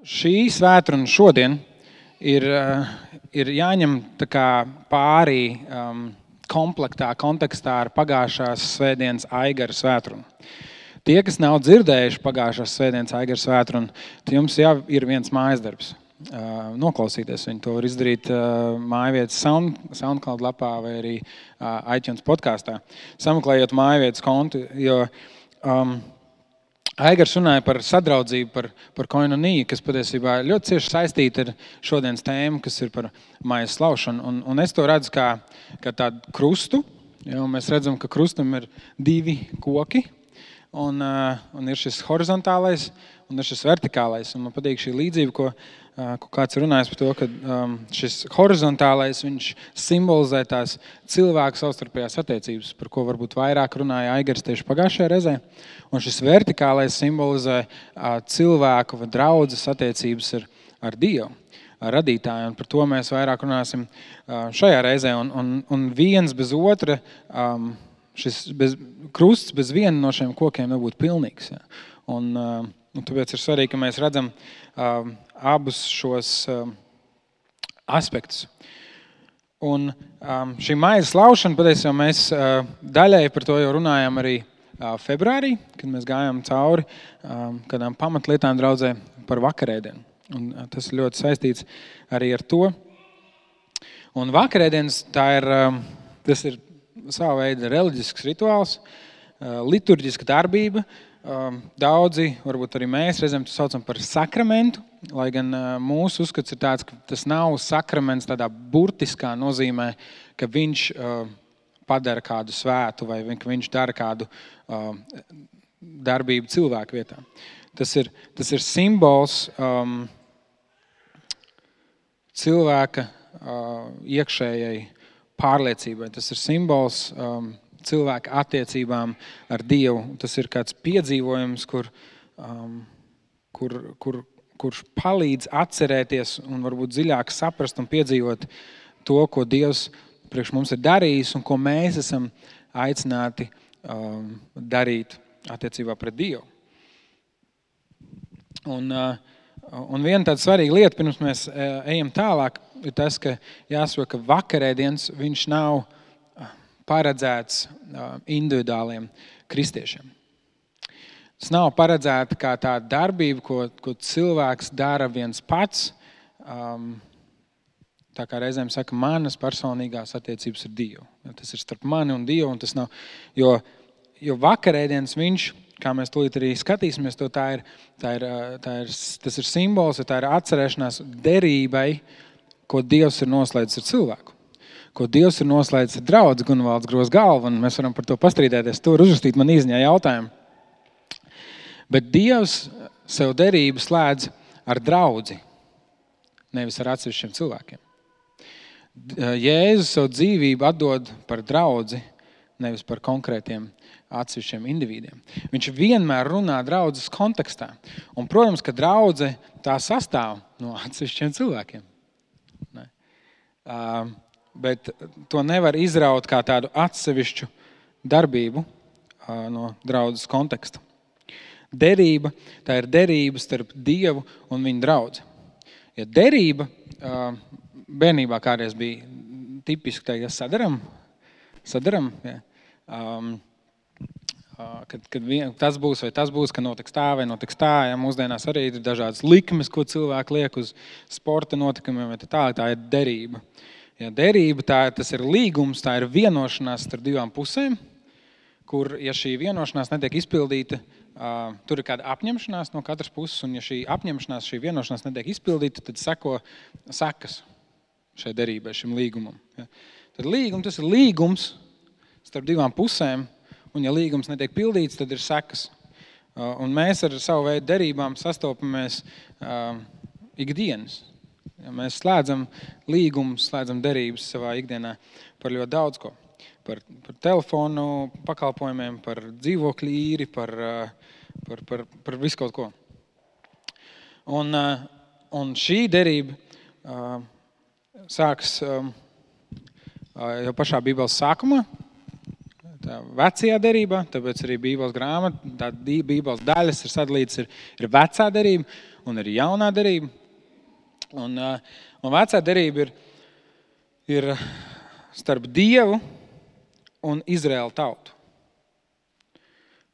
Šī svētdiena šodien ir jāņem tā kā pārī kontekstā ar pagājušās svētdienas Aigara svētdienu. Tie, kas nav dzirdējuši pagājušās svētdienas Aigara svētdienu, tad jums jau ir viens mājasdarbs. Noklausīties viņu. To var izdarīt mājvietas SoundCloud lapā vai arī iTunes podkastā. Sameklējot mājvietas kontu, jo Aigars runāja par sadraudzību, par koinoniju, kas patiesībā ļoti cieši saistīta ar šodienas tēmu, kas ir par mājas slaušanu. Un es to redzu kā tādu krustu, jo mēs redzam, ka krustam ir divi koki, un ir šis horizontālais un ir šis vertikālais. Un man patīk šī līdzība, ko kāds runājas par to, ka šis horizontālais, viņš simbolizē tās cilvēku savstarpējās attiecības, par ko varbūt vairāk runāja Aigars tieši pagājušajā reizē. Un šis vertikālais simbolizē cilvēku vai draudzes attiecības ar Dievu, ar radītāju. Un par to mēs vairāk runāsim šajā reizē. Un viens bez otra, krusts bez viena no šiem kokiem nebūtu pilnīgs. Ja. Un tāpēc ir svarīgi, ka mēs redzam abus šos aspektus. Un šī mājas slaušana, patiesībā mēs daļai par to jau runājām arī februārī, kad mēs gājām cauri kādām pamatlietām draudzē par vakarēdienu. Un tas ir ļoti saistīts arī ar to. Un vakarēdienas, tas ir sava veida reliģisks rituāls, liturģiska darbība. Daudzi, varbūt arī mēs reizēm to saucam par sakramentu, lai gan mūsu uzskats ir tāds, ka tas nav sakraments tādā burtiskā nozīmē, ka viņš padara kādu svētu vai ka viņš dara kādu darbību cilvēku vietā. Tas ir simbols cilvēka iekšējai pārliecībai. Tas ir simbols cilvēka attiecībām ar Dievu. Tas ir kāds piedzīvojums, kurš palīdz atcerēties un varbūt dziļāk saprast un piedzīvot to, ko Dievs priekš mums ir darījis un ko mēs esam aicināti darīt attiecībā pret Dievu. Un viena tāda svarīga lieta, pirms mēs ejam tālāk, ir tas, ka jāsaka, ka vakarēdienas viņš nav paredzēts individuāliem kristiešiem. Tas nav paredzēta kā tāda darbība, ko cilvēks dara viens pats. Tā kā reizēm saka, manas personīgās attiecības ar Dievu. Tas ir starp mani un Dievu. Un tas nav, jo vakarēdienas viņš, kā mēs tūlīt arī skatīsimies, tas ir simbols, tā ir atcerēšanās derībai, ko Dievs ir noslēdzis ar cilvēku. Ko Dievs ir noslēdzis ar draudzi Gunvalds Gros galvu, un mēs varam par to pastrīdēties. To var uzrakstīt man īsņā jautājumu. Bet Dievs sev derību slēdz ar draudzi, nevis ar atsevišķiem cilvēkiem. Jēzus savu dzīvību atdod par draudzi, nevis par konkrētiem atsevišķiem individiem. Viņš vienmēr runā draudzes kontekstā. Un, protams, ka draudze tā sastāv no atsevišķiem cilvēkiem. Bet to nevar izraut kā tādu atsevišķu darbību no draudzes konteksta. Derība, tā ir derība starp Dievu un viņa draudzi. Ja derība bērnībā kādreiz bija tipiski teikt, sadaram, ja. Kad tas būs vai tas būs, ka notiks tā vai notiks tā. Ja, mūsdienās arī ir dažādas likmes, ko cilvēki liek uz sporta notikumiem, tā ir derība. Ja derība, tas ir līgums, tā ir vienošanās starp divām pusēm, kur, ja šī vienošanās netiek izpildīta, tur ir kāda apņemšanās no katras puses, un ja šī apņemšanās, šī vienošanās netiek izpildīta, tad seko sekas šai derībai, šim līgumam. Ja. Tad tas ir līgums starp divām pusēm, un ja līgums netiek pildīts, tad ir sekas. Un mēs ar savu veidu derībām sastopamies ikdienas. Ja mēs slēdzam līgumus, slēdzam derības savā ikdienā par ļoti daudz ko. Par telefonu pakalpojumiem, par dzīvokļu īri, par visu kaut ko. Un šī derība sāks jau pašā Bībeles sākumā, tā vecajā derībā, tāpēc arī Bībeles grāmata, tā Bībeles daļas ir sadalītas, ir vecā derība. un ir jaunā derība. Un vecā derība ir starp Dievu un Izraēla tautu.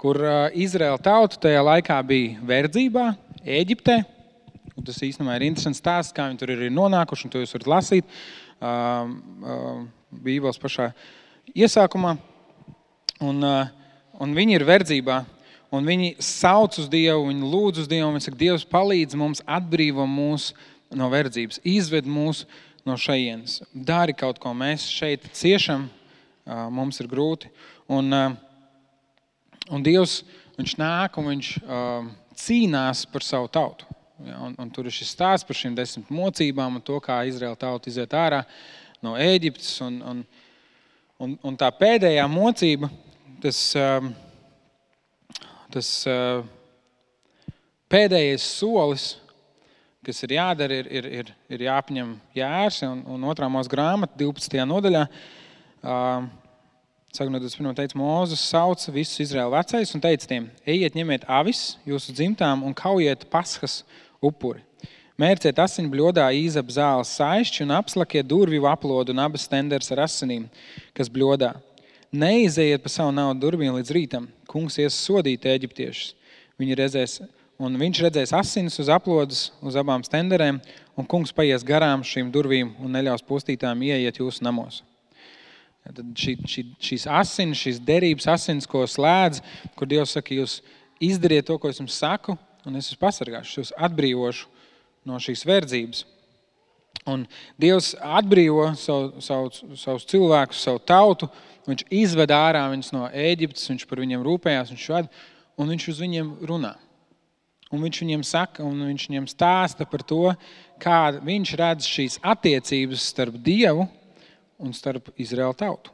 Kur Izraēla tauta tajā laikā bija verdzībā, Ēģiptē. Un tas īstenībā ir interesants stāsts, kā viņi tur ir nonākuši, un to jūs varat lasīt Bībeles pašā iesākumā. Un viņi ir verdzībā, un viņi sauc uz Dievu, viņi lūdz uz Dievu, un viņi saka, Dievs palīdz mums, atbrīvo mūs no verdzības, izved mūs no šejienes. Dari kaut ko, mēs šeit ciešam, mums ir grūti. Un Dievs, viņš nāk un viņš cīnās par savu tautu. Ja, un tur ir šis stāsts par šīm 10 mocībām un to, kā Izraēla tauta iziet ārā no Ēģiptes. Un tā pēdējā mocība, tas pēdējais solis, kas ir jādara, ir jāapņem jērs. Un 2. Mūzes grāmata 12. nodaļā, sākot no 21. teica, Mūzes sauca visus Izraēla vecais un teica tiem, ejiet, ņemiet avis jūsu dzimtām un kaujiet Paskas upuri. Mērciet asiņu bļodā īzap zāles saišķi un apslakiet durvju aplodu un abas stenders ar asinīm, kas bļodā. Neizejiet pa savu naudu durvīm līdz rītam. Kungs ies sodīt eģiptiešus. Viņš redzēs asinis uz aplodas, uz abām stenderēm, un kungs paies garām šīm durvīm un neļaus postītājiem ieiet jūsu namos. Tad šīs asinis, šīs derības asinis, ko slēdz, kur Dievs saka, jūs izdariet to, ko es jums saku, un es jūs pasargāšu, jūs atbrīvošu no šīs verdzības. Un Dievs atbrīvo savus cilvēkus, savu tautu, viņš izved ārā viņus no Ēģiptes, viņš par viņiem rūpējās, un viņš uz viņiem runā. Un viņš viņiem saka, un viņš viņiem stāsta par to, kā viņš redz šīs attiecības starp Dievu un starp Izraēla tautu.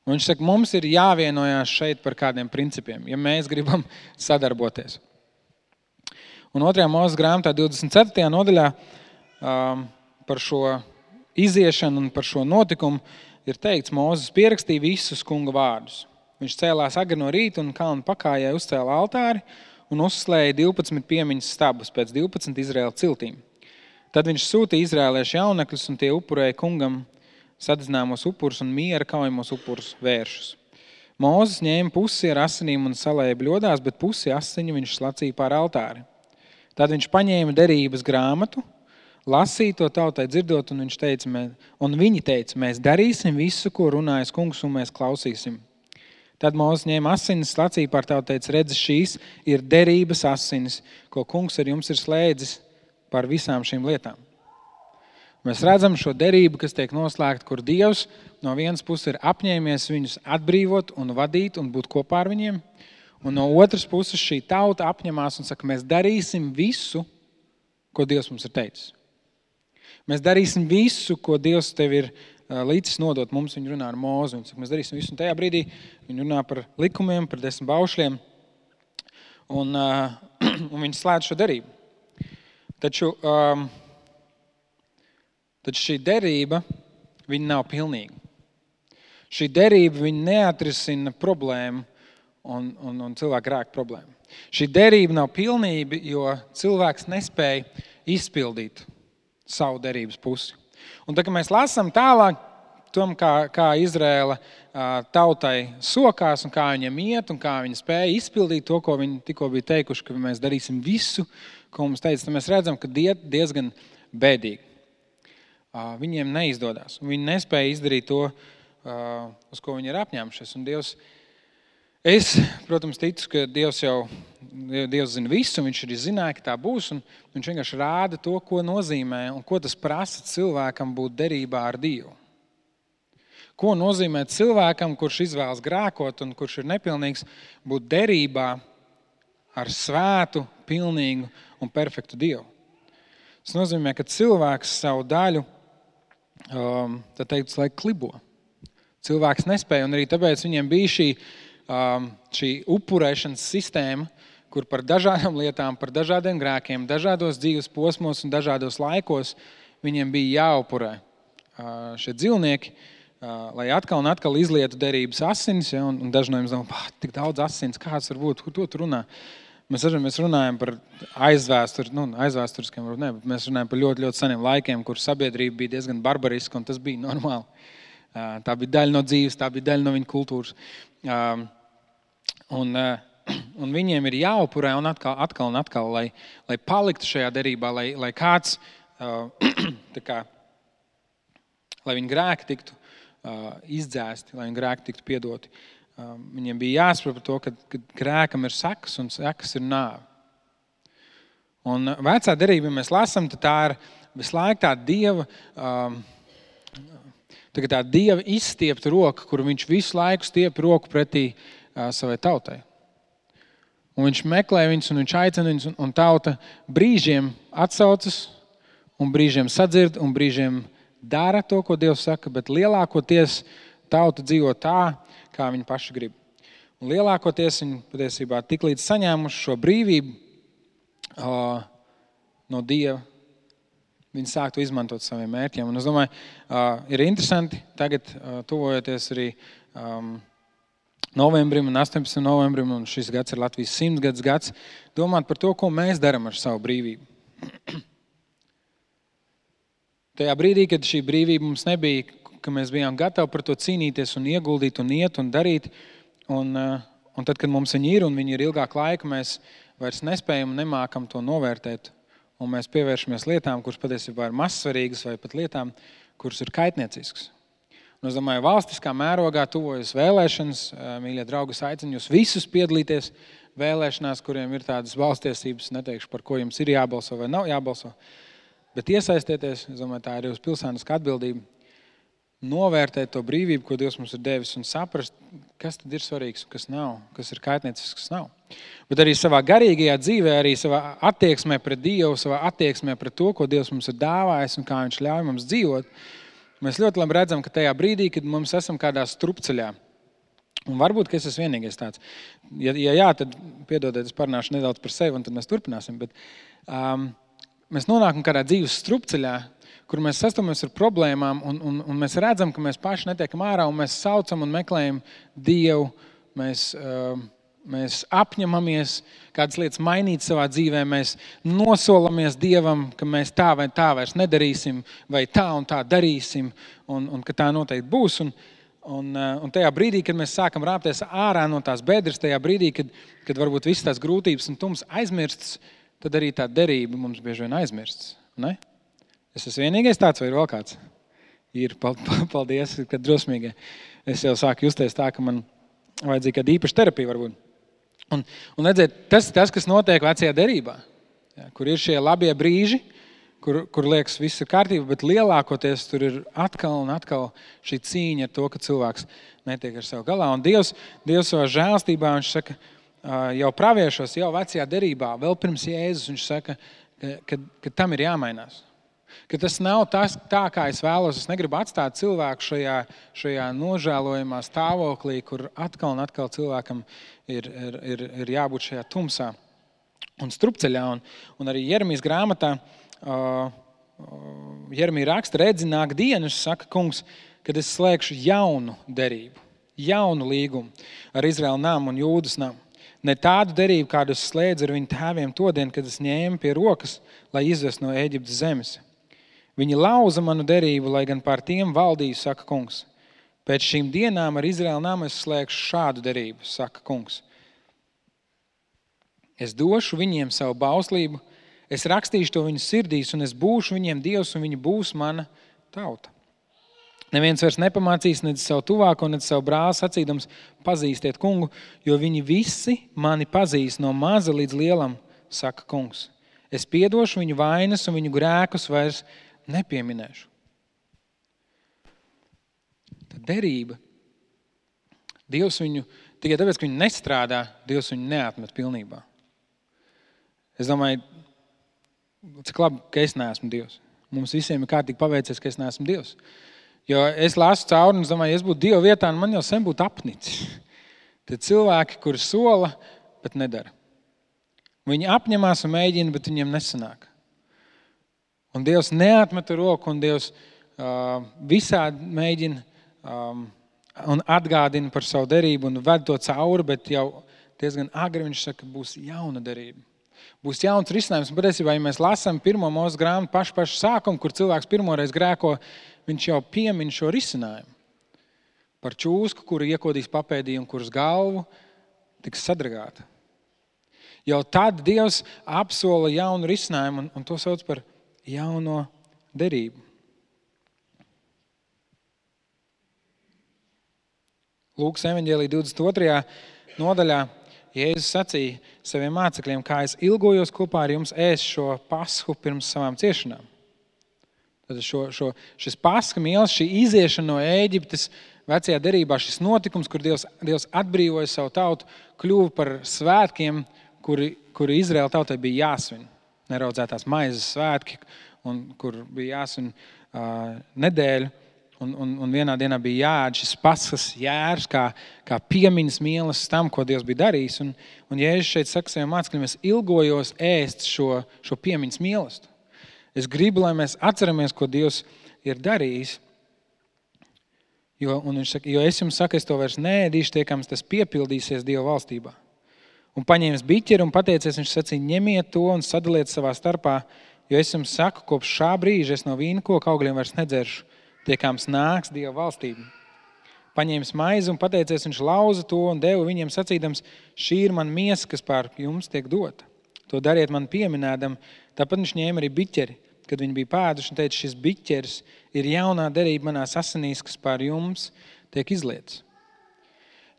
Un viņš saka, mums ir jāvienojās šeit par kādiem principiem, ja mēs gribam sadarboties. Un 2. Mūzes grāmatā 24. nodaļā par šo iziešanu un par šo notikumu ir teikts, Mūzes pierakstīja visus kunga vārdus. Viņš cēlās agri no rīta un kalnu pakājai uzcēla altāri un uzslēja 12 piemiņas stabus pēc 12 Izraēla ciltīm. Tad viņš sūtīja izrēliešu jaunekļus un tie upurēja kungam sadedzināmos upurus un miera kaujamos upurus vēršus. Mūzes ņēma pusi ar asinīm un salēja bļodās, bet pusi asiņu viņš slacīja pār altāri. Tad viņš paņēma derības grāmatu, lasīja to tautai dzirdot, un viņi teica, mēs darīsim visu, ko runājas kungs, un mēs klausīsim. Tad Mūzes ņēma asinis, slacīja pār tautu, teica, redzi, šīs ir derības asinis, ko kungs ar jums ir slēdzis par visām šīm lietām. Mēs redzam šo derību, kas tiek noslēgta, kur Dievs no vienas puses ir apņēmies viņus atbrīvot un vadīt un būt kopā ar viņiem, un no otras puses šī tauta apņemās un saka, mēs darīsim visu, ko Dievs mums ir teicis. Mēs darīsim visu, ko Dievs tev ir līdzis nodot mums. Viņi runā ar Mūzi, un saka, mēs darīsim visu, un tajā brīdī viņi runā par likumiem, par 10 baušļiem, un viņi slēdz šo derību. Taču šī derība, viņa nav pilnīga. Šī derība, viņa neatrisina problēmu un cilvēku grēku problēmu. Šī derība nav pilnība, jo cilvēks nespēja izpildīt savu derības pusi. Un tā, kad mēs lasām tālāk, tom, kā Izraēla tautai sokās un kā viņiem iet un kā viņi spēja izpildīt to, ko viņi tikko bija teikuši, ka mēs darīsim visu, ko mums teica, tad mēs redzam, ka diezgan bēdīgi. Viņiem neizdodas. Viņi nespēja izdarīt to, uz ko viņi ir apņēmušies. Un Dievs, es, protams, ticu, ka Dievs zina visu, un viņš arī zināja, ka tā būs, un viņš vienkārši rāda to, ko nozīmē un ko tas prasa cilvēkam būt derībā ar Dievu. Ko nozīmē cilvēkam, kurš izvēlas grēkot un kurš ir nepilnīgs, būt derībā ar svētu, pilnīgu un perfektu Dievu. Tas nozīmē, ka cilvēks savu daļu, tā teikt, laik klibo. Cilvēks nespēja, un arī tāpēc viņiem bija šī upurēšanas sistēma, kur par dažādām lietām, par dažādiem grēkiem, dažādos dzīves posmos un dažādos laikos viņiem bija jāupurē šie dzīvnieki, lai atkal un atkal izlietu derības asinis, ja, un daži no jums domā, tik daudz asins, kāds var būt, ko tu runā? Mēs runājam par aizvēsturiskiem, varbūt ne, bet mēs runājam par ļoti, ļoti seniem laikiem, kur sabiedrība bija diezgan barbariska, un tas bija normāli. Tā bija daļa no dzīves, tā bija daļa no viņa kultūras. Un viņiem ir jāupurē un atkal, lai paliktu šajā derībā, lai kāds, lai viņa grēki tiktu izdzēsti, lai viņa grēki tiktu piedoti. Viņiem bija jāsaprot par to, ka grēkam ir sekas un sekas ir nāve. Un vecā derība, ja mēs lasām, tad tā ir visu laiku tā Dieva izstiepta roka, kur viņš visu laiku stiep roku pretī savai tautai. Un viņš meklē viņus un viņš aicina viņus, un tauta brīžiem atsaucas, un brīžiem sadzird, un brīžiem dara to, ko Dievs saka, bet lielākoties tauta dzīvo tā, kā viņi paši grib. Un lielākoties viņi patiesībā tik līdz saņēmuši šo brīvību no Dieva, viņi sāktu izmantot saviem mērķiem. Un es domāju, ir interesanti tagad tuvojoties arī novembrim un 18. novembrim, un šis gads ir Latvijas 100 gads, domāt par to, ko mēs darām ar savu brīvību. Tajā brīdī, kad šī brīvība mums nebija, ka mēs bijām gatavi par to cīnīties un ieguldīt un iet un darīt, un tad, kad mums viņi ir un viņi ir ilgāk laika, mēs vairs nespējam un nemākam to novērtēt, un mēs pievēršamies lietām, kuras patiesībā ir mazsvarīgas, vai pat lietām, kuras ir kaitnieciskas. Un es domāju, valstiskā mērogā tuvojas vēlēšanas, mīļie draugi, es aicinu jūs visus piedalīties vēlēšanās, kuriem ir tādas valstiesības, neteikšu, par ko jums ir jābalso vai nav jābalso, bet iesaistieties, es domāju, tā ir jūsu pilsēniska atbildība, novērtēt to brīvību, ko Dievs mums ir devis, un saprast, kas tad ir svarīgs, kas nav, kas ir kaitniecisks, kas nav. Bet arī savā garīgajā dzīvē, arī savā attieksmē pret Dievu, savā attieksmē pret to, ko Dievs mums ir dāvājis un kā viņš ļauj mums dzīvot, mēs ļoti labi redzam, ka tajā brīdī, kad mums esam kādā strupceļā, un varbūt, ka es esmu vienīgais tāds, ja jā, tad piedodiet, es parunāšu nedaudz par sevi, un tad mēs turpināsim, bet mēs nonākam kādā dzīves strupceļā, kur mēs sastopamies ar problēmām, un mēs redzam, ka mēs paši netiekam ārā, un mēs saucam un meklējam Dievu, mēs apņemamies kādas lietas mainīt savā dzīvē, mēs nosolamies Dievam, ka mēs tā vai tā vairs nedarīsim, vai tā un tā darīsim, un ka tā noteikti būs. Un tajā brīdī, kad mēs sākam rāpties ārā no tās bedres, tajā brīdī, kad varbūt visas tās grūtības un tums aizmirstas, tad arī tā derība mums bieži vien aizmirstas. Ne? Es esmu vienīgais tāds, vai ir vēl kāds? Ir, paldies, kad drosmīgai. Es jau sāku justies tā, ka man vajadzīga kāda īpaša terapija varbūt. Un redziet, tas, kas notiek vecajā derībā, kur ir šie labie brīži, kur liekas viss ir kārtība, bet lielākoties tur ir atkal un atkal šī cīņa ar to, ka cilvēks netiek ar sev galā. Un Dievs savā žēlstībā, viņš saka, jau praviešos, jau vecajā derībā, vēl pirms Jēzus, viņš saka, ka tam ir jāmainās. Ka tas nav tā, kā es vēlos. Es negribu atstāt cilvēku šajā nožēlojamā stāvoklī, kur atkal un atkal cilvēkam ir jābūt šajā tumsā un strupceļā. Un arī Jeremijas grāmatā Jeremija raksta, redzi, nāk dienas, saka kungs, kad es slēgšu jaunu derību, jaunu līgumu ar Izraēlu namu un Jūdas namu. Ne tādu derību, kādu es slēdzu ar viņu tēviem todien, kad es ņēmu pie rokas, lai izvestu no Ēģiptes zemes. Viņi lauza manu derību, lai gan pār tiem valdīju, saka kungs. Pēc šīm dienām ar Izraēlu namu es slēgšu šādu derību, saka kungs. Es došu viņiem savu bauslību, es rakstīšu to viņu sirdīs, un es būšu viņiem Dievs, un viņi būs mana tauta. Neviens vairs nepamācīs nedz savu tuvāko, nedz savu brāli sacīdams, pazīstiet kungu, jo viņi visi mani pazīst no maza līdz lielam, saka kungs. Es piedošu viņu vainas un viņu grēkus vairs nepieminēšu. Tad derība. Dievs viņu, tikai tāpēc, ka viņu nestrādā, Dievs viņu neatmet pilnībā. Es domāju, cik labi, ka es neesmu Dievs. Mums visiem ir kārtīgi paveicies, ka es neesmu Dievs. Jo es lasu cauri un es domāju, ja es būtu Dieva vietā, man jau sen būtu apnicis. Tad cilvēki, kuri sola, bet nedara. Viņi apņemās un mēģina, bet viņiem nesanāk. Un Dievs neatmeta roku, un Dievs visādi mēģina un atgādina par savu derību un ved to cauri, bet jau diezgan agri viņš saka, būs jauna derība. Būs jauns risinājums. Un patiesībā, ja mēs lasām 1. Mūzes grāmatu pašu sākumu, kur cilvēks pirmoreiz grēko, viņš jau piemin šo risinājumu. Par čūsku, kuru iekodīs papēdī un kuras galvu tiks sadragāta. Jau tad Dievs apsola jaunu risinājumu un to sauc par jauno derību. Lūkas evaņģēlija 22. nodaļā Jēzus sacīja saviem mācekļiem, kā es ilgojos kopā ar jums ēst šo pasku pirms savām ciešanām. Tad šis paska mīlas, šī iziešana no Ēģiptes vecajā derībā, šis notikums, kur Dievs atbrīvoja savu tautu, kļuva par svētkiem, kuri Izraēla tautai bija jāsvin. Neraudzētās maizes svētki, un kur bija jāsvin nedēļu. Un vienā dienā bija jāēd šis paskas jērs, kā piemiņas mīlas tam, ko Dievs bija darījis. Un Jēzus šeit saka saviem mācekļiem, es ilgojos ēst šo piemiņas mīlestību. Es gribu, lai mēs atceramies, ko Dievs ir darījis. Jo es jums saku, es to vairs neēdīšu, tiekams tas piepildīsies Dieva valstībā. Un paņēmis biķeri un pateicies, viņš sacīja, ņemiet to un sadaliet savā starpā, jo es jums saku, kopš šā brīža es no vīnkoka augļiem vairs nedzeršu. Tiekams nāks Dieva valstība. Paņēmis maizi un pateicies, viņš lauza to un deva viņiem sacīdams, šī ir man miesa, kas pār jums tiek dota. To dariet man pieminēdam. Tāpat viņš ņēma arī biķeri, kad viņi bija pēduši un teica, šis biķeris ir jaunā derība manās asinīs, kas pār jums tiek izlietas.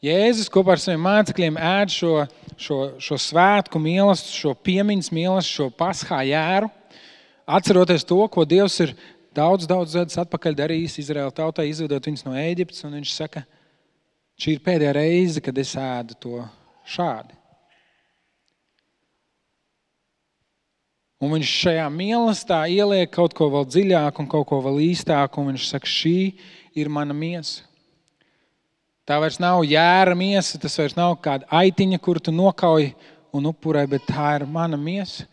Jēzus kopā ar saviem mācekļiem ēd šo svētku mīlestību, šo piemiņas mīlestību, šo paskā jēru, atceroties to, ko Dievs ir daudz gadus atpakaļ darījis Izraēla tautai, izvedot viņus no Ēģiptes, un viņš saka, šī ir pēdējā reize, kad es ēdu to šādi. Un viņš šajā mīlestībā ieliek kaut ko vēl dziļāk un kaut ko vēl īstāk, un viņš saka, šī ir mana miesa. Tā vairs nav jēra miesa, tas vairs nav kāda aitiņa, kuru tu nokauj un upurē, bet tā ir mana miesa.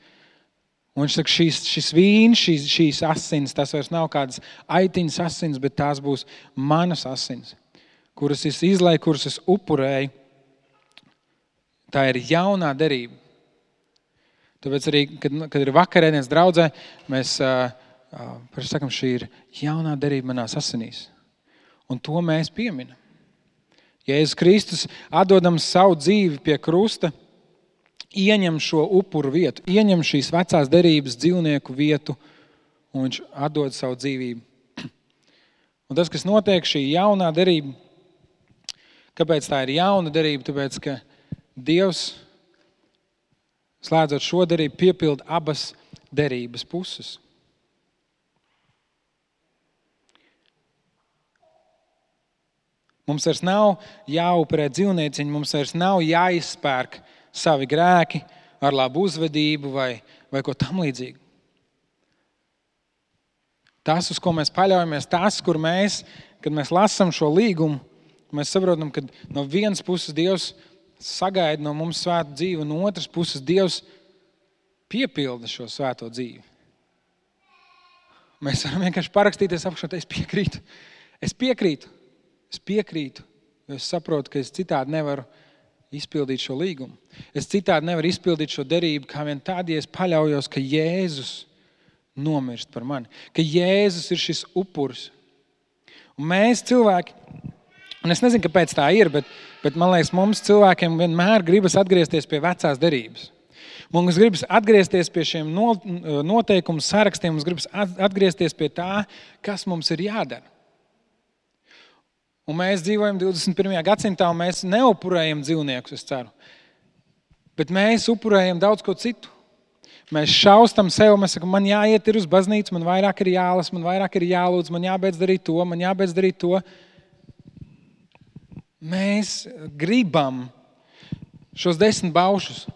Un viņš saka, šis vīns, šīs asins, tas vairs nav kādas aitiņas asins, bet tās būs manas asins, kuras es izlēju, kuras es upurēju. Tā ir jaunā derība. Tāpēc arī, kad ir vakarēdienas draudzē, mēs sakam, šī ir jaunā derība manās asinīs. Un to mēs pieminam. Jēzus Kristus, atdodams savu dzīvi pie krusta, ieņem šo upuru vietu, ieņem šīs vecās derības dzīvnieku vietu, un viņš atdod savu dzīvību. Un tas, kas notiek, šī jaunā derība, kāpēc tā ir jauna derība? Tāpēc, ka Dievs, slēdzot šo derību, piepilda abas derības puses. Mums vairs nav jāupurē dzīvnieciņi, mums vairs nav jāizspērk savi grēki ar labu uzvedību vai ko tam līdzīgu. Tas, uz ko mēs paļaujamies, tas, kur kad mēs lasām šo līgumu, mēs saprotam, ka no vienas puses Dievs sagaida no mums svētu dzīvi, un no otras puses Dievs piepilda šo svēto dzīvi. Mēs varam vienkārši parakstīties apakšā, es piekrītu, jo es saprotu, ka es citādi nevaru izpildīt šo līgumu. Es citādi nevaru izpildīt šo derību, kā vien tad, ja es paļaujos, ka Jēzus nomirst par mani, ka Jēzus ir šis upuris. Un mēs cilvēki, un es nezinu, kāpēc tā ir, bet man liekas, mums cilvēkiem vienmēr gribas atgriezties pie vecās derības. Mums gribas atgriezties pie šiem noteikumu sarakstiem, mums gribas atgriezties pie tā, kas mums ir jādara. Un mēs dzīvojam 21. gadsimtā, un mēs neupurējam dzīvniekus, es ceru. Bet mēs upurējam daudz ko citu. Mēs šaustam sev, mēs sakam, man jāiet ir uz baznīcu, man vairāk ir jālas, man vairāk ir jālūdz, man jābeidz darīt to. Mēs gribam šos 10 baušus.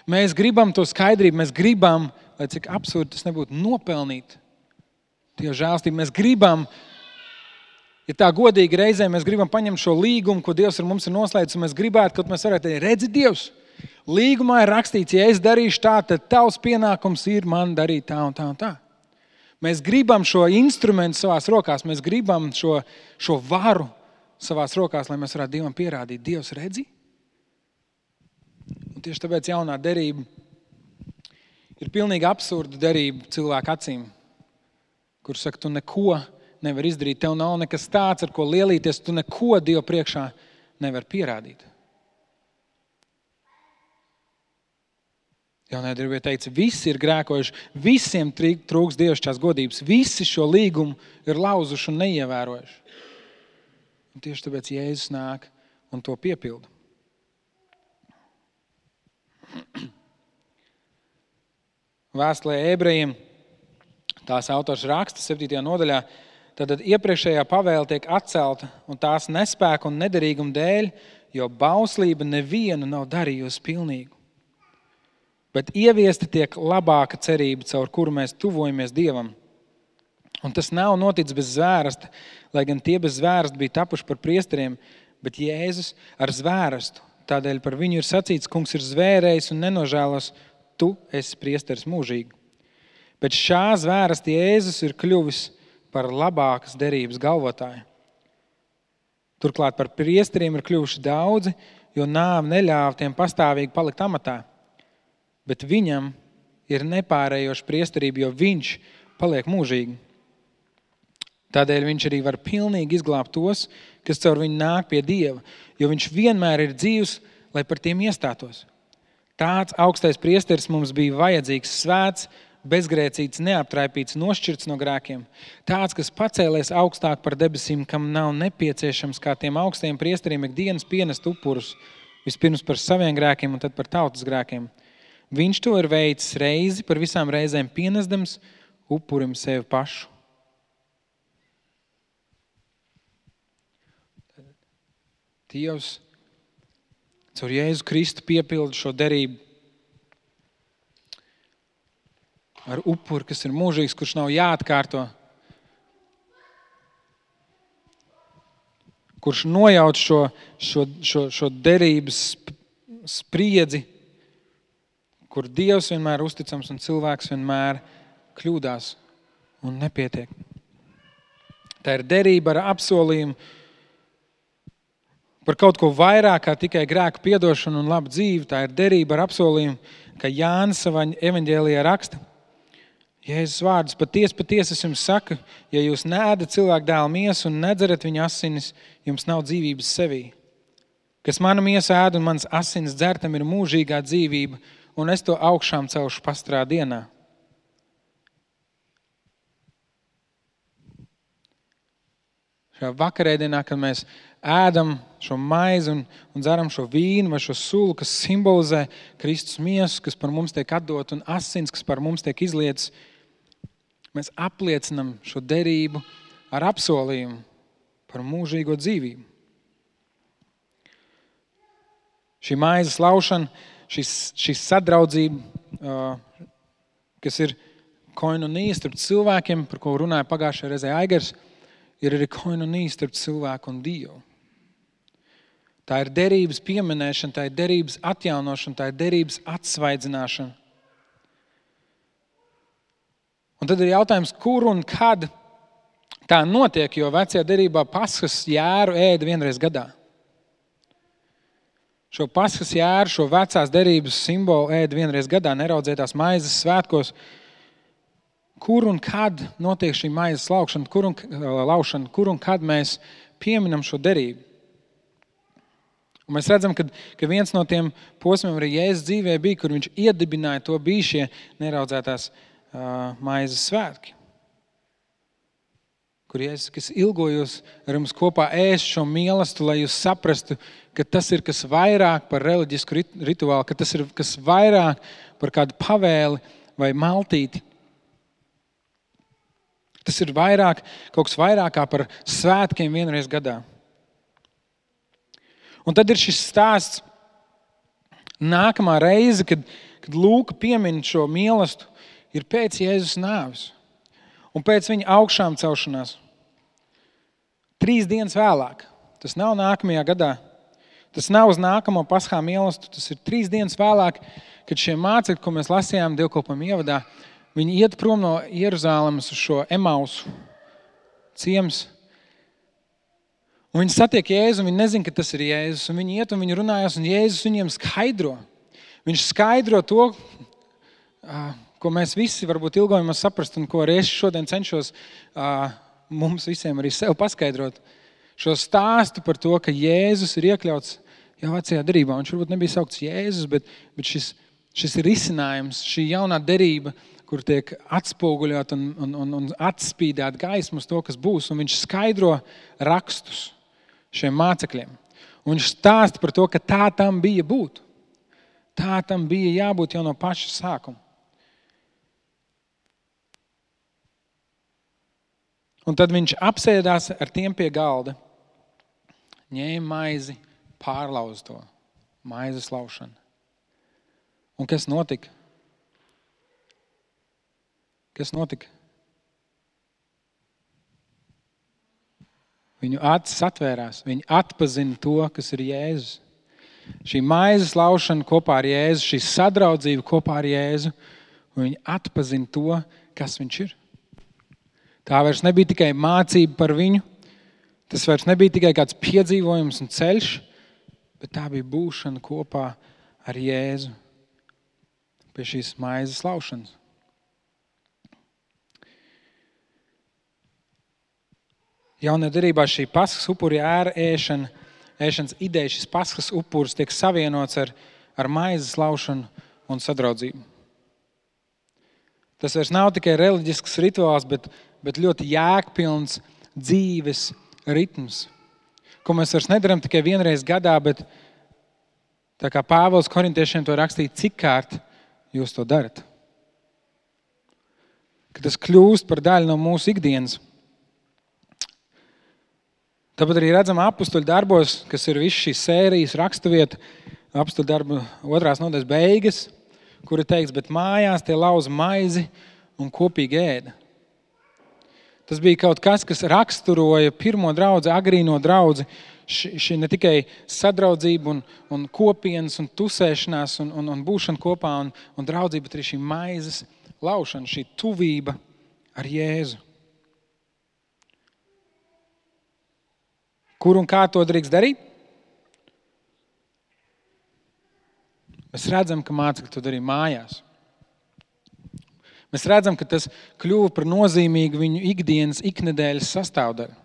Mēs gribam to skaidrību, mēs gribam, lai cik absurdi tas nebūtu, nopelnīt Dieva žēlstību. Mēs gribam, ja tā godīgi reizē, mēs gribam paņemt šo līgumu, ko Dievs ar mums ir noslēdzis, un mēs gribētu, ka mēs varētu teikt, redzi Dievs, līgumā ir rakstīts, ja es darīšu tā, tad tavs pienākums ir man darīt tā un tā un tā. Mēs gribam šo instrumentu savās rokās, mēs gribam šo varu savās rokās, lai mēs varētu Dievam pierādīt, Dievs redzi, Un tieši tāpēc jaunā derība ir pilnīgi absurda derība cilvēku acīm, kur saka, tu neko nevar izdarīt, tev nav nekas tāds, ar ko lielīties, tu neko Dievu priekšā nevar pierādīt. Jaunajā derībā teica, visi ir grēkojuši, visiem trūks dievišķās godības, visi šo līgumu ir lauzuši un neievērojuši. Un tieši tāpēc Jēzus nāk un to piepilda. Vēstulē Ebrejiem tās autors raksta 7. nodaļā, tad iepriekšējā pavēle tiek atcelta un tās nespēka un nederīguma dēļ, jo bauslība nevienu nav darījusi pilnīgu. Bet ieviesti tiek labāka cerība, caur kuru mēs tuvojamies Dievam. Un tas nav noticis bez zvērsta, lai gan tie bez zvērsta bija tapuši par priesteriem, bet Jēzus ar zvērstu. Tādēļ par viņu ir sacīts, kungs ir zvērējis un nenožēlos, tu esi priesteris mūžīgi. Bet šā zvērsta Jēzus ir kļuvis par labākas derības galvotāju. Turklāt par priesteriem ir kļuvuši daudzi, jo nāve neļāva tiem pastāvīgi palikt amatā. Bet viņam ir nepārējoša priesterība, jo viņš paliek mūžīgi. Tādēļ viņš arī var pilnīgi izglābt tos, kas caur viņu nāk pie Dieva, jo viņš vienmēr ir dzīvs, lai par tiem iestātos. Tāds augstais priesteris mums bija vajadzīgs, svēts, bezgrēcīts, neaptraipīts, nošķirts no grēkiem. Tāds, kas pacēlies augstāk par debesīm, kam nav nepieciešams kā tiem augstajiem priesteriem ikdienas pienest upurus, vispirms par saviem grēkiem un tad par tautas grēkiem. Viņš to ir veicis reizi par visām reizēm pienesdams upurim sevi pašu. Dievs caur Jēzu Kristu piepilda šo derību ar upuri, kas ir mūžīgs, kurš nav jāatkārto, kurš nojauc šo derības spriedzi, kur Dievs vienmēr uzticams un cilvēks vienmēr kļūdās un nepietiek. Tā ir derība ar apsolījumu par kaut ko vairāk kā tikai grēku piedošanu un labu dzīvi. Tā ir derība ar apsolījumu, ka Jānis savā evaņģēlijā raksta. Jēzus vārdus, patiesi es jums saku, ja jūs neēdat cilvēku dēla miesu un nedzerat viņa asinis, jums nav dzīvības sevī. Kas manu miesu ēd un mans asinis dzer, tam ir mūžīgā dzīvība, un es to augšām celšu pastrā dienā. Šajā vakarēdienā, kad mēs ēdam šo maizi un dzeram šo vīnu vai šo sulu, kas simbolizē Kristus miesu, kas par mums tiek atdot, un asins, kas par mums tiek izlietas, mēs apliecinam šo derību ar apsolījumu par mūžīgo dzīvību. Šī maizes laušana, šī sadraudzība, kas ir koinonija starp cilvēkiem, par ko runāja pagājušajā reizē Aigars, ir arī koinonija starp cilvēku un Dievu. Tā ir derības pieminēšana, tā ir derības atjaunošana, tā ir derības atsvaidzināšana. Un tad ir jautājums, kur un kad tā notiek, jo vecajā derībā Paskas jēru ēda vienreiz gadā. Šo Paskas jēru, šo vecās derības simbolu ēda vienreiz gadā, neraudzētās maizes svētkos. Kur un kad notiek šī maizes laušana, kur un kad mēs pieminam šo derību. Un mēs redzam, ka viens no tiem posmiem arī Jēzus dzīvē bija, kur viņš iedibināja to, bija šie neraudzētās maizes svētki. Kur Jēzus, kas ilgojos ar jums kopā ēst šo mīlestību, lai jūs saprastu, ka tas ir kas vairāk par reliģisku rituālu, ka tas ir kas vairāk par kādu pavēli vai maltīti. Tas ir vairāk, kaut kas vairāk kā par svētkiem vienreiz gadā. Un tad ir šis stāsts nākamā reize, kad Lūka piemin šo mīlestību, ir pēc Jēzus nāves un pēc viņa augšām celšanās. 3 dienas vēlāk. Tas nav nākamajā gadā. Tas nav uz nākamo Paskā mīlestību. Tas ir 3 dienas vēlāk, kad šie mācekļi, ko mēs lasījām dievkalpojuma ievadā, viņi iet prom no Jeruzālemes uz šo Emausu ciems. Un viņi satiek Jēzu, un viņi nezin, ka tas ir Jēzus. Un viņi iet un viņi runājās, un Jēzus viņiem skaidro. Viņš skaidro to, ko mēs visi varbūt ilgojamies saprast un ko arī es šodien cenšos mums visiem arī sev paskaidrot. Šo stāstu par to, ka Jēzus ir iekļauts jau vecajā derībā. Viņš varbūt nebija saukts Jēzus, bet šis ir risinājums, šī jaunā derība, kur tiek atspoguļot un atspīdēt gaismu uz to, kas būs. Un viņš skaidro rakstus šiem mācekļiem. Un viņš stāsta par to, ka tā tam bija būt. Tā tam bija jābūt jau no paša sākuma. Un tad viņš apsēdās ar tiem pie galda, ņēma maizi, pārlauza to, maizes laušana. Un kas notika? Kas notika? Viņu acis atvērās, viņi atpazina to, kas ir Jēzus. Šī maizes laušana kopā ar Jēzu, šī sadraudzība kopā ar Jēzu, un viņi atpazina to, kas viņš ir. Tā vairs nebija tikai mācība par viņu, tas vairs nebija tikai kāds piedzīvojums un ceļš, bet tā bija būšana kopā ar Jēzu pie šīs maizes laušanas. Jaunajā derībā šī paskas upuri ēšanas ideja, šis paskas upuris tiek savienots ar maizes laušanu un sadraudzību. Tas vairs nav tikai reliģisks rituāls, bet ļoti jēgpilns dzīves ritms, ko mēs vairs nedaram tikai vienreiz gadā, bet tā kā Pāvils korintiešiem to rakstīja, cik kārt jūs to darat. Ka tas kļūst par daļu no mūsu ikdienas. Tāpat arī redzam apustuļu darbos, kas ir viss šīs sērijas raksturvieta, apustuļu darbu 2. nodaļas beigas, kur ir teikts, bet mājās tie lauza maizi un kopīgi ēda. Tas bija kaut kas, kas raksturoja pirmo draudzi, agrīno draudzi, šī ne tikai sadraudzība un kopienas un tusēšanās un būšana kopā un draudzība, bet arī šī maizes laušana, šī tuvība ar Jēzu. Kur un kā to drīkst darīt? Mēs redzam, ka mācekļi to darīja mājās. Mēs redzam, ka tas kļuva par nozīmīgu viņu ikdienas, iknedēļas sastāvdaļu.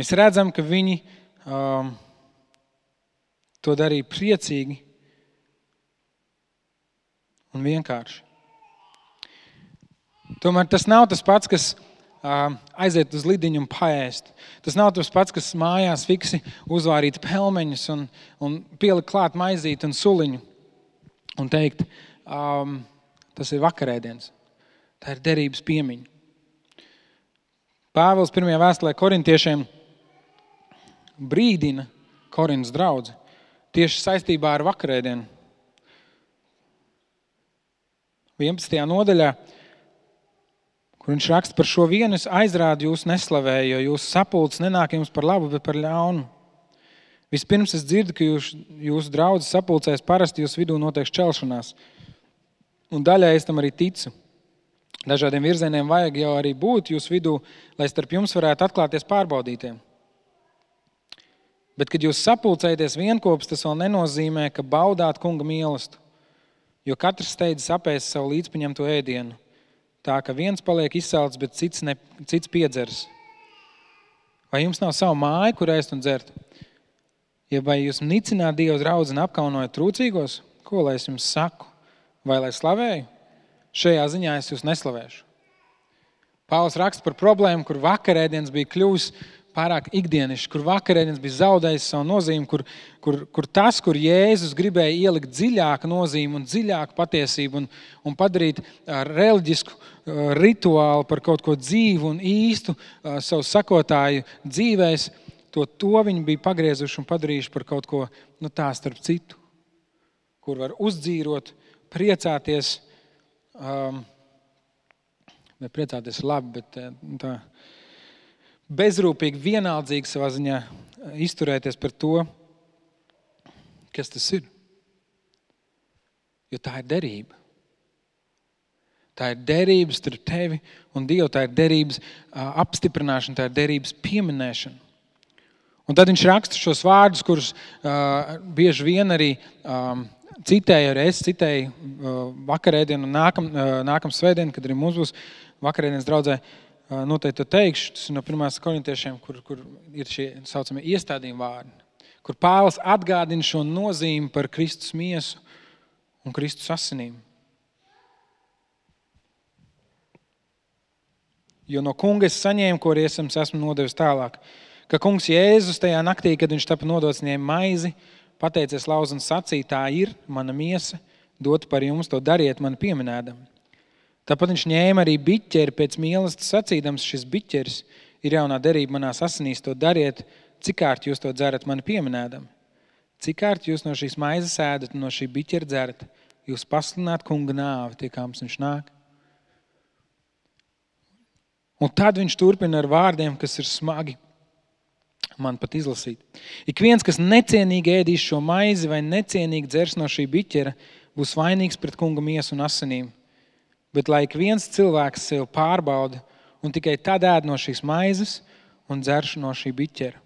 Mēs redzam, ka viņi to darīja priecīgi un vienkārši. Tomēr tas nav tas pats, kas aiziet uz lidiņu un paēst. Tas nav tas pats, kas mājās fiksi uzvārīt pelmeņus un pielikt klāt maizīti un suliņu un teikt, tas ir vakarēdiens. Tā ir derības piemiņa. Pāvils 1. vēstulē korintiešiem brīdina Korintas draudzi tieši saistībā ar vakarēdienu. 11. nodaļā, kur viņš raksta par šo vienu, es aizrādu jūs neslavēju, jo jūsu sapulces nenāk jums par labu, bet par ļaunu. Vispirms es dzirdu, ka jūsu draudzes sapulcēs parasti jūs vidū notiek šķelšanās. Un daļai es tam arī ticu. Dažādiem virzieniem vajag jau arī būt jūsu vidū, lai starp jums varētu atklāties pārbaudītiem. Bet, kad jūs sapulcējaties vienkops, tas vēl nenozīmē, ka baudāt kunga mīlestību, jo katrs steidzas apēst savu līdzpaņemto ēdienu. Tā, ka viens paliek izsalts, bet cits piedzers. Vai jums nav savu māju, kur ēst un dzert? Ja vai jūs nicināt Dieva draudzi un apkaunojat trūcīgos? Ko lai es jums saku? Vai lai slavēju? Šajā ziņā es jūs neslavēšu. Pāvils raksta par problēmu, kur vakarēdienas bija kļuvis pārāk ikdienišs, kur vakarēdienas bija zaudējis savu nozīmi, kur tas, kur Jēzus gribēja ielikt dziļāku nozīmi un dziļāku patiesību un padarīt reliģisku rituālu par kaut ko dzīvu un īstu savu sakotāju dzīvēs, to viņi bija pagriezuši un padarījuši par kaut ko tā starp citu, kur var uzdzīrot, priecāties, ne priecāties labi, bet tā bezrūpīgi, vienaldzīgi savā ziņā izturēties par to, kas tas ir. Jo tā ir derība. Tā ir derības starp tevi un Dievu, tā ir derības apstiprināšana, tā ir derības pieminēšana. Un tad viņš raksta šos vārdus, kurus bieži vien arī citēju vakarēdienu un nākam svētdienu, kad arī mums būs vakarēdienas draudzē, noteikti to teikšu. Tas ir no 1. korintiešiem, kur ir šie saucamie iestādījumi vārdi, kur Pāvils atgādina šo nozīmi par Kristus miesu un Kristus asinīm. Jo no kunga es saņēmu, ko arī esmu nodevis tālāk, ka kungs Jēzus tajā naktī, kad viņš tapa nodots, ņēma maizi, pateicies lauz un sacīja, tā ir mana miesa, dot par jums, to dariet mani pieminēdam. Tāpat viņš ņēma arī biķeri pēc mīlestības sacīdams, šis biķeris ir jaunā derība manās asinīs, to dariet, cikārt jūs to dzerat mani pieminēdam. Cikārt jūs no šīs maizes ēdat un no šī biķera dzerat, jūs paslināt kunga nāvi, tie kā mums viņš nāk. Un tad viņš turpina ar vārdiem, kas ir smagi man pat izlasīt. Ik viens, kas necienīgi ēdīs šo maizi vai necienīgi dzers no šī biķera, būs vainīgs pret kunga miesu un asinīm. Bet lai ik viens cilvēks sev pārbauda un tikai tad ēd no šīs maizes un dzerš no šī biķera.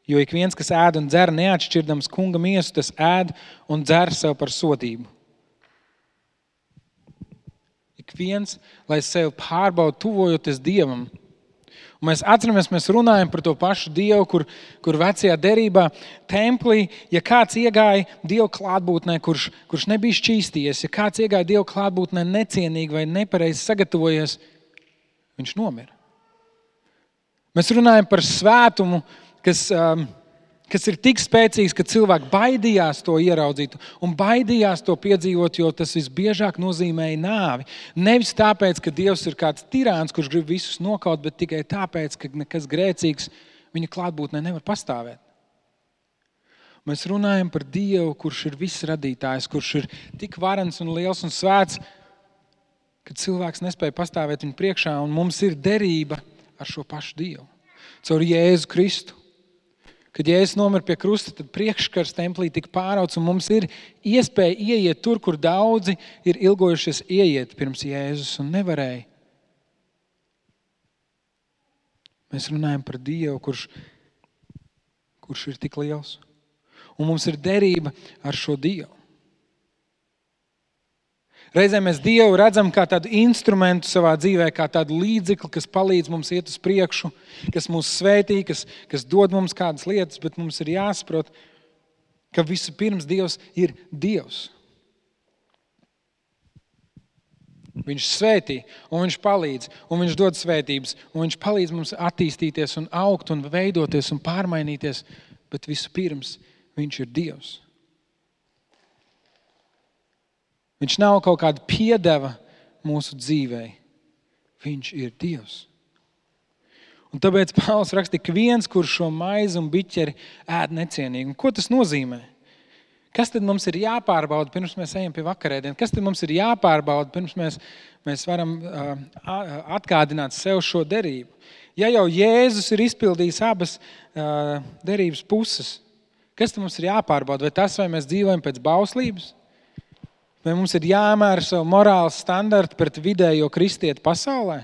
Jo ik viens, kas ēd un dzer neatšķirdams kunga miesu, tas ēd un dzer sev par sodību. Ik viens, lai sev pārbauda tuvojoties Dievam. Un mēs atceramies, mēs runājam par to pašu Dievu, kur vecajā derībā templī, ja kāds iegāja Dievu klātbūtnē, kurš nebija šķīstījies, ja kāds iegāja Dievu klātbūtnē necienīgi vai nepareizi sagatavojies, viņš nomira. Mēs runājam par svētumu, kas ir tik spēcīgs, ka cilvēki baidījās to ieraudzīt un baidījās to piedzīvot, jo tas visbiežāk nozīmēja nāvi. Nevis tāpēc, ka Dievs ir kāds tirāns, kurš grib visus nokaut, bet tikai tāpēc, ka nekas grēcīgs viņa klātbūtnē nevar pastāvēt. Mēs runājam par Dievu, kurš ir viss radītājs, kurš ir tik varens un liels un svēts, ka cilvēks nespēja pastāvēt viņa priekšā, un mums ir derība ar šo pašu Dievu. Caur Jēzu Kristu. Kad Jēzus nomira pie krusta, tad priekškars templī tika pārauts, un mums ir iespēja ieiet tur, kur daudzi ir ilgojušies ieiet pirms Jēzus un nevarēja. Mēs runājam par Dievu, kurš ir tik liels. Un mums ir derība ar šo Dievu. Reizē mēs Dievu redzam kā tādu instrumentu savā dzīvē, kā tādu līdzekli, kas palīdz mums iet uz priekšu, kas mūs svētī, kas dod mums kādas lietas, bet mums ir jāsaprot, ka vispirms Dievs ir Dievs. Viņš svētī, un viņš palīdz, un viņš dod svētības, un viņš palīdz mums attīstīties un augt un veidoties un pārmainīties, bet vispirms viņš ir Dievs. Viņš nav kaut kāda piedeva mūsu dzīvei. Viņš ir Dievs. Un tāpēc Pāvils raksta, ka viens, kurš šo maizi un biķeri ēd necienīgi. Un ko tas nozīmē? Kas tad mums ir jāpārbauda, pirms mēs ejam pie vakarēdienas? Kas tad mums ir jāpārbauda, pirms mēs varam atgādināt sev šo derību? Ja jau Jēzus ir izpildījis abas derības puses, kas tad mums ir jāpārbauda? Vai tas, vai mēs dzīvojam pēc bauslības? Vai mums ir jāmēra savu morāls standartu pret vidējo kristieti pasaulē?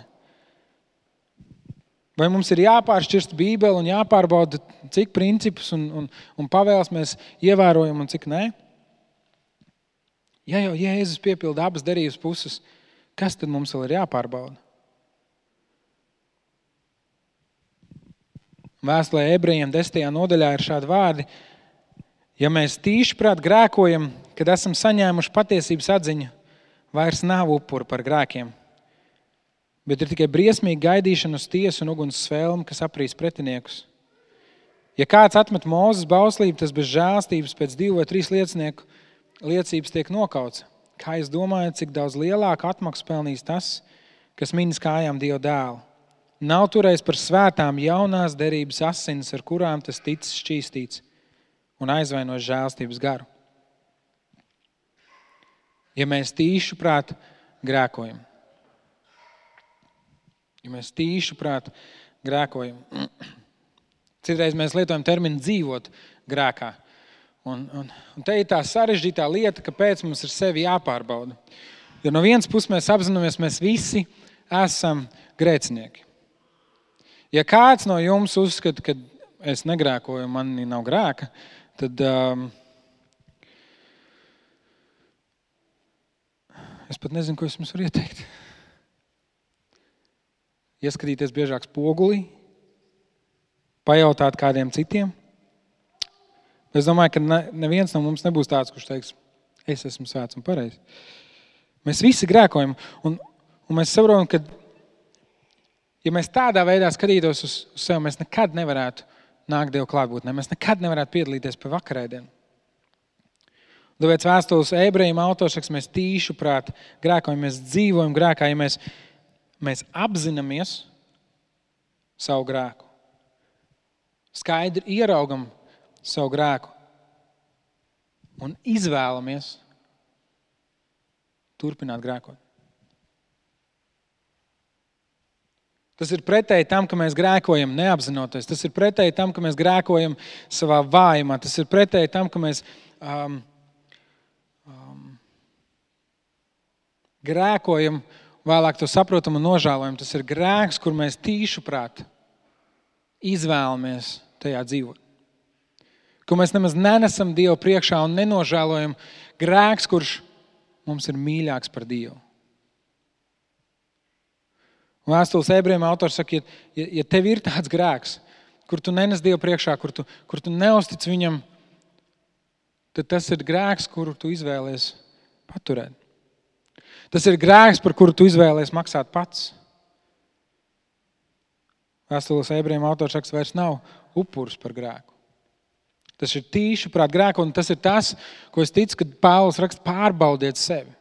Vai mums ir jāpāršķirst Bībeli un jāpārbauda, cik principus un pavēles mēs ievērojam un cik nē? Ja jau Jēzus piepilda abas derības puses, kas tad mums vēl ir jāpārbauda? Vēstulē Ebrejiem 10. nodaļā ir šādi vārdi. Ja mēs tīšiprāt grēkojam, kad esam saņēmuši patiesības atziņu, vairs nav upuru par grēkiem, bet ir tikai briesmīga gaidīšana uz tiesu un uguns svēlmi, kas aprīs pretiniekus. Ja kāds atmet Mūzes bauslību, tas bez žēlstības pēc 2 vai 3 liecinieku liecības tiek nokauts. Kā jūs domājat, cik daudz lielāku atmaksu pelnīs tas, kas minas kājām Dieva dēlu? Nav turējis par svētām jaunās derības asinis, ar kurām tas ticis šķīstīts un aizvainojas žēlstības garu. Ja mēs tīšuprāt grēkojam. Citreiz mēs lietojam terminu dzīvot grēkā. Un te ir tā sarežģītā lieta, kāpēc mums ir sevi jāpārbauda. Jo no vienas puses mēs apzināmies, mēs visi esam grēcinieki. Ja kāds no jums uzskata, ka es negrēkoju, man nav grēka, tad Es pat nezinu, ko es jums varu ieteikt. Ieskatīties biežāk spogulī, pajautāt kādiem citiem. Es domāju, ka neviens no mums nebūs tāds, kurš teiks, es esmu svēts un pareizs. Mēs visi grēkojam, un mēs saprotam, ka, ja mēs tādā veidā skatītos uz sevi, mēs nekad nevarētu nākt Dievu klātbūtnē, mēs nekad nevarētu piedalīties pie vakarēdienu. Tāpēc vēstules ebrejiem autors saka, mēs tīšu prāt grēkojam, mēs dzīvojam grēkā, ja mēs apzināmies savu grēku. Skaidri ieraugam savu grēku un izvēlamies turpināt grēkot. Tas ir pretēji tam, ka mēs grēkojam neapzinoties. Tas ir pretēji tam, ka mēs grēkojam savā vājumā. Tas ir pretēji tam, ka mēs grēkojam, vēlāk to saprotam un nožēlojam. Tas ir grēks, kur mēs tīšu prāt izvēlamies tajā dzīvot. Ko mēs nemaz nenesam Dievu priekšā un nenožēlojam. Grēks, kurš mums ir mīļāks par Dievu. Vēstules ebrejiem autors saka, ja tev ir tāds grēks, kur tu nenes Dievu priekšā, kur tu neustic viņam, tad tas ir grēks, kuru tu izvēlies paturēt. Tas ir grēks, par kuru tu izvēlies maksāt pats. Vēstules ebrejiem autors saka, vairs nav upuris par grēku. Tas ir tīši prāt grēku, un tas ir tas, ko es ticu, kad Pāvils raksta, pārbaudiet sevi.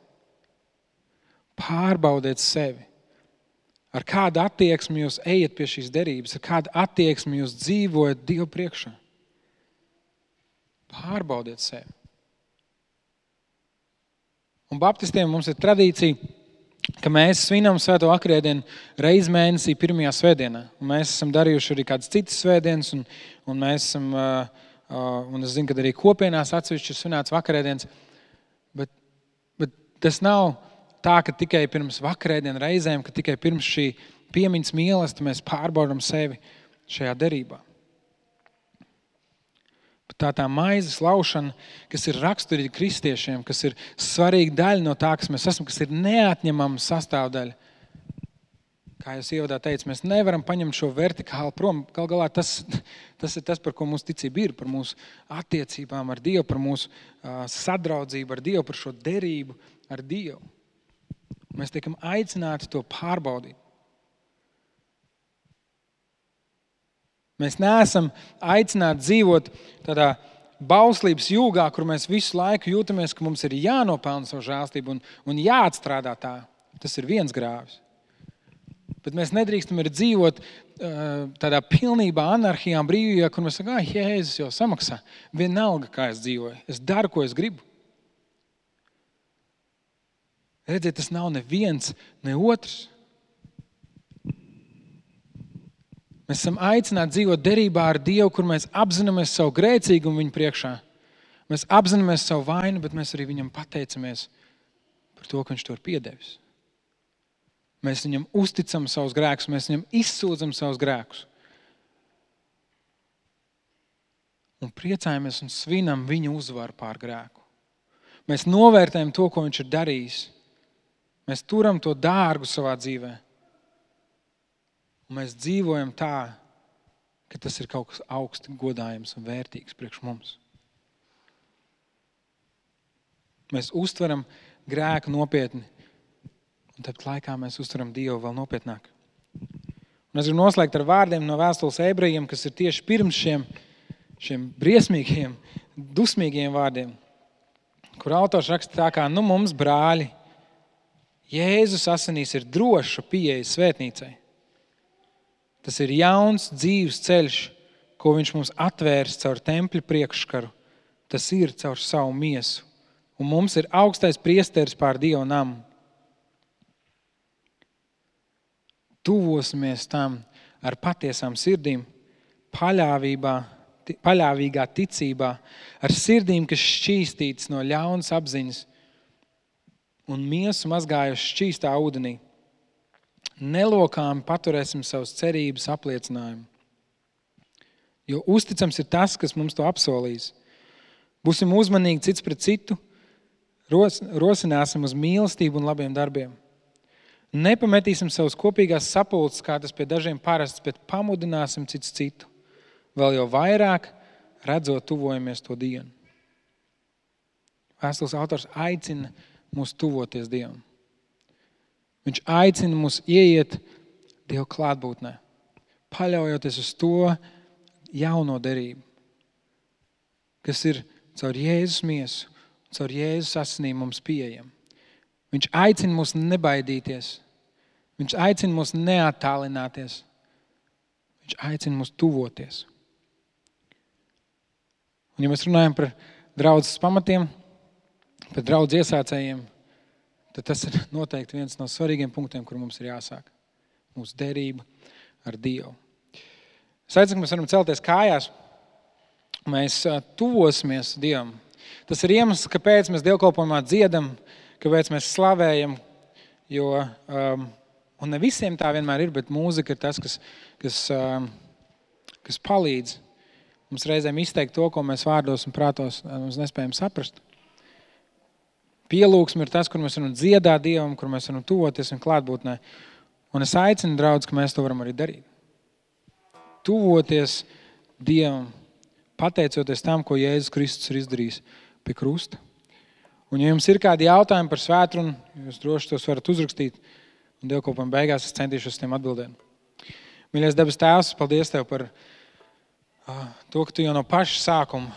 Pārbaudiet sevi. Ar kādu attieksmi jūs ejat pie šīs derības, ar kādu attieksmi jūs dzīvojat Dievu priekšā. Pārbaudiet sevi. Un baptistiem mums ir tradīcija, ka mēs svinam svēto vakarēdienu reizi mēnesī pirmajā svētdienā. Un mēs esam darījuši arī kādas citas svētdienas, un mēs esam, un es zinu, ka arī kopienās atsevišķi ir svinēts vakarēdienas, bet tas nav tā, ka tikai pirms vakarēdienu reizēm, ka tikai pirms šī piemiņas mīlestība mēs pārbaudam sevi šajā derībā. Tā maizes laušana, kas ir raksturīga kristiešiem, kas ir svarīga daļa no tā, kas mēs esam, kas ir neatņemama sastāvdaļa. Kā jūs ievadā teicu, mēs nevaram paņemt šo vertikāli prom. Gal galā tas ir tas, par ko mūsu ticība ir, par mūsu attiecībām ar Dievu, par mūsu sadraudzību ar Dievu, par šo derību ar Dievu. Mēs tiekam aicināti to pārbaudīt. Mēs neesam aicināti dzīvot tādā bauslības jūgā, kur mēs visu laiku jūtamies, ka mums ir jānopelna savu žēlstību un jāatstrādā tā. Tas ir viens grāvis. Bet mēs nedrīkstam arī dzīvot tādā pilnībā anarhijā, brīvībā, kur mēs sakām, Jēzus jau samaksā. Vienalga, kā es dzīvoju. Es daru, ko es gribu. Redziet, tas nav neviens, ne otrs. Mēs esam aicināti dzīvot derībā ar Dievu, kur mēs apzināmies savu grēcīgumu viņa priekšā. Mēs apzināmies savu vainu, bet mēs arī viņam pateicamies par to, ka viņš to ir piedevis. Mēs viņam uzticam savus grēkus, mēs viņam izsūdzam savus grēkus. Un priecājamies un svinam viņa uzvaru pār grēku. Mēs novērtējam to, ko viņš ir darījis. Mēs turam to dārgu savā dzīvē. Un mēs dzīvojam tā, ka tas ir kaut kas augsti godājams un vērtīgs priekš mums. Mēs uztveram grēku nopietni, un tāpat laikā mēs uztveram Dievu vēl nopietnāk. Un es gribu noslēgt ar vārdiem no vēstules ebrejiem, kas ir tieši pirms šiem briesmīgiem, dusmīgiem vārdiem, kur autors raksta tā kā, mums brāļi, Jēzus asinīs ir droša pieeja svētnīcai. Tas ir jauns dzīves ceļš, ko viņš mums atvērs caur tempļa priekškaru. Tas ir caur savu miesu. Un mums ir augstais priesteris pār Dieva namu. Tuvosimies tam ar patiesām sirdīm, paļāvīgā ticībā, ar sirdīm, kas šķīstītas no ļaunas apziņas un miesu mazgājuši šķīstā ūdenī. Nelokāmi paturēsim savus cerības apliecinājumu. Jo uzticams ir tas, kas mums to apsolīs. Būsim uzmanīgi cits pret citu, Rosināsim uz mīlestību un labiem darbiem. Nepametīsim savus kopīgās sapulces, kā tas pie dažiem parasts, bet pamudināsim cits citu. Vēl jau vairāk, redzot, tuvojamies to dienu. Vēstules autors aicina mūs tuvoties Dievam. Viņš aicina mūs ieiet Dieva klātbūtnē, paļaujoties uz to jauno derību, kas ir caur Jēzus miesu, caur Jēzus asinīm mums pieejama. Viņš aicina mūs nebaidīties. Viņš aicina mūs neattālināties. Viņš aicina mūs tuvoties. Un, ja mēs runājam par draudzes pamatiem, par draudzes iesācējiem, tad tas ir noteikti viens no svarīgiem punktiem, kur mums ir jāsāk. Mūsu derība ar Dievu. Es aicinu, ka mēs varam celties kājās. Mēs tuvosimies Dievam. Tas ir iemesls, kāpēc mēs dievkalpojumā dziedam, kāpēc mēs slavējam, un ne visiem tā vienmēr ir, bet mūzika ir tas, kas palīdz mums reizēm izteikt to, ko mēs vārdos un prātos mums nespējam saprast. Pielūgsme ir tas, kur mēs varam dziedāt Dievam, kur mēs varam tuvoties un klātbūtnē. Un es aicinu, draudz, ka mēs to varam arī darīt. Tuvoties Dievam, pateicoties tam, ko Jēzus Kristus ir izdarījis pie krusta. Un ja jums ir kādi jautājumi par svētrunu, jūs droši tos varat uzrakstīt, un dievkalpojuma beigās es centīšos uz tiem atbildēt. Mīļais debes Tēvs, paldies Tev par to, ka Tu jau no paša sākuma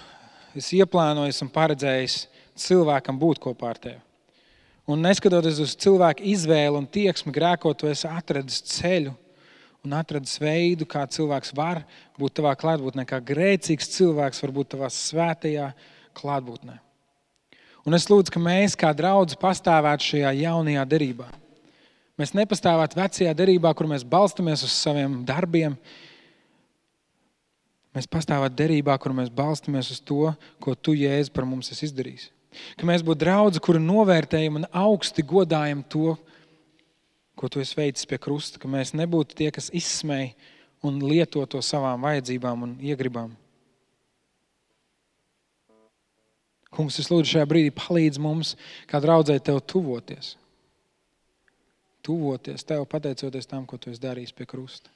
esi ieplānojis un paredzējis cilvēkam būt kopā ar Tevi. Un neskatoties uz cilvēku izvēli un tieksmi grēkot, Tu esi atradis ceļu un atradis veidu, kā cilvēks var būt Tavā klātbūtnē, kā grēcīgs cilvēks var būt Tavā svētajā klātbūtnē. Un es lūdzu, ka mēs kā draudzi pastāvētu šajā jaunajā derībā. Mēs nepastāvētu vecajā derībā, kur mēs balstamies uz saviem darbiem. Mēs pastāvētu derībā, kur mēs balstamies uz to, ko Tu, Jēzu, par mums esi izdarījis. Ka mēs būtu draudzi, kuri novērtējam un augsti godājam to, ko Tu esi veicis pie krusta. Ka mēs nebūtu tie, kas izsmej un lieto to savām vajadzībām un iegribām. Kungs, es lūdzu šajā brīdī palīdz mums, kā draudzē Tev tuvoties. Tuvoties Tev, pateicoties tam, ko Tu esi darījis pie krusta.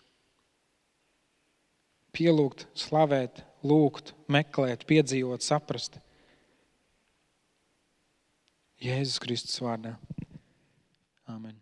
Pielūgt, slavēt, lūgt, meklēt, piedzīvot, saprast. Jēzus Kristus vārdā. Āmen.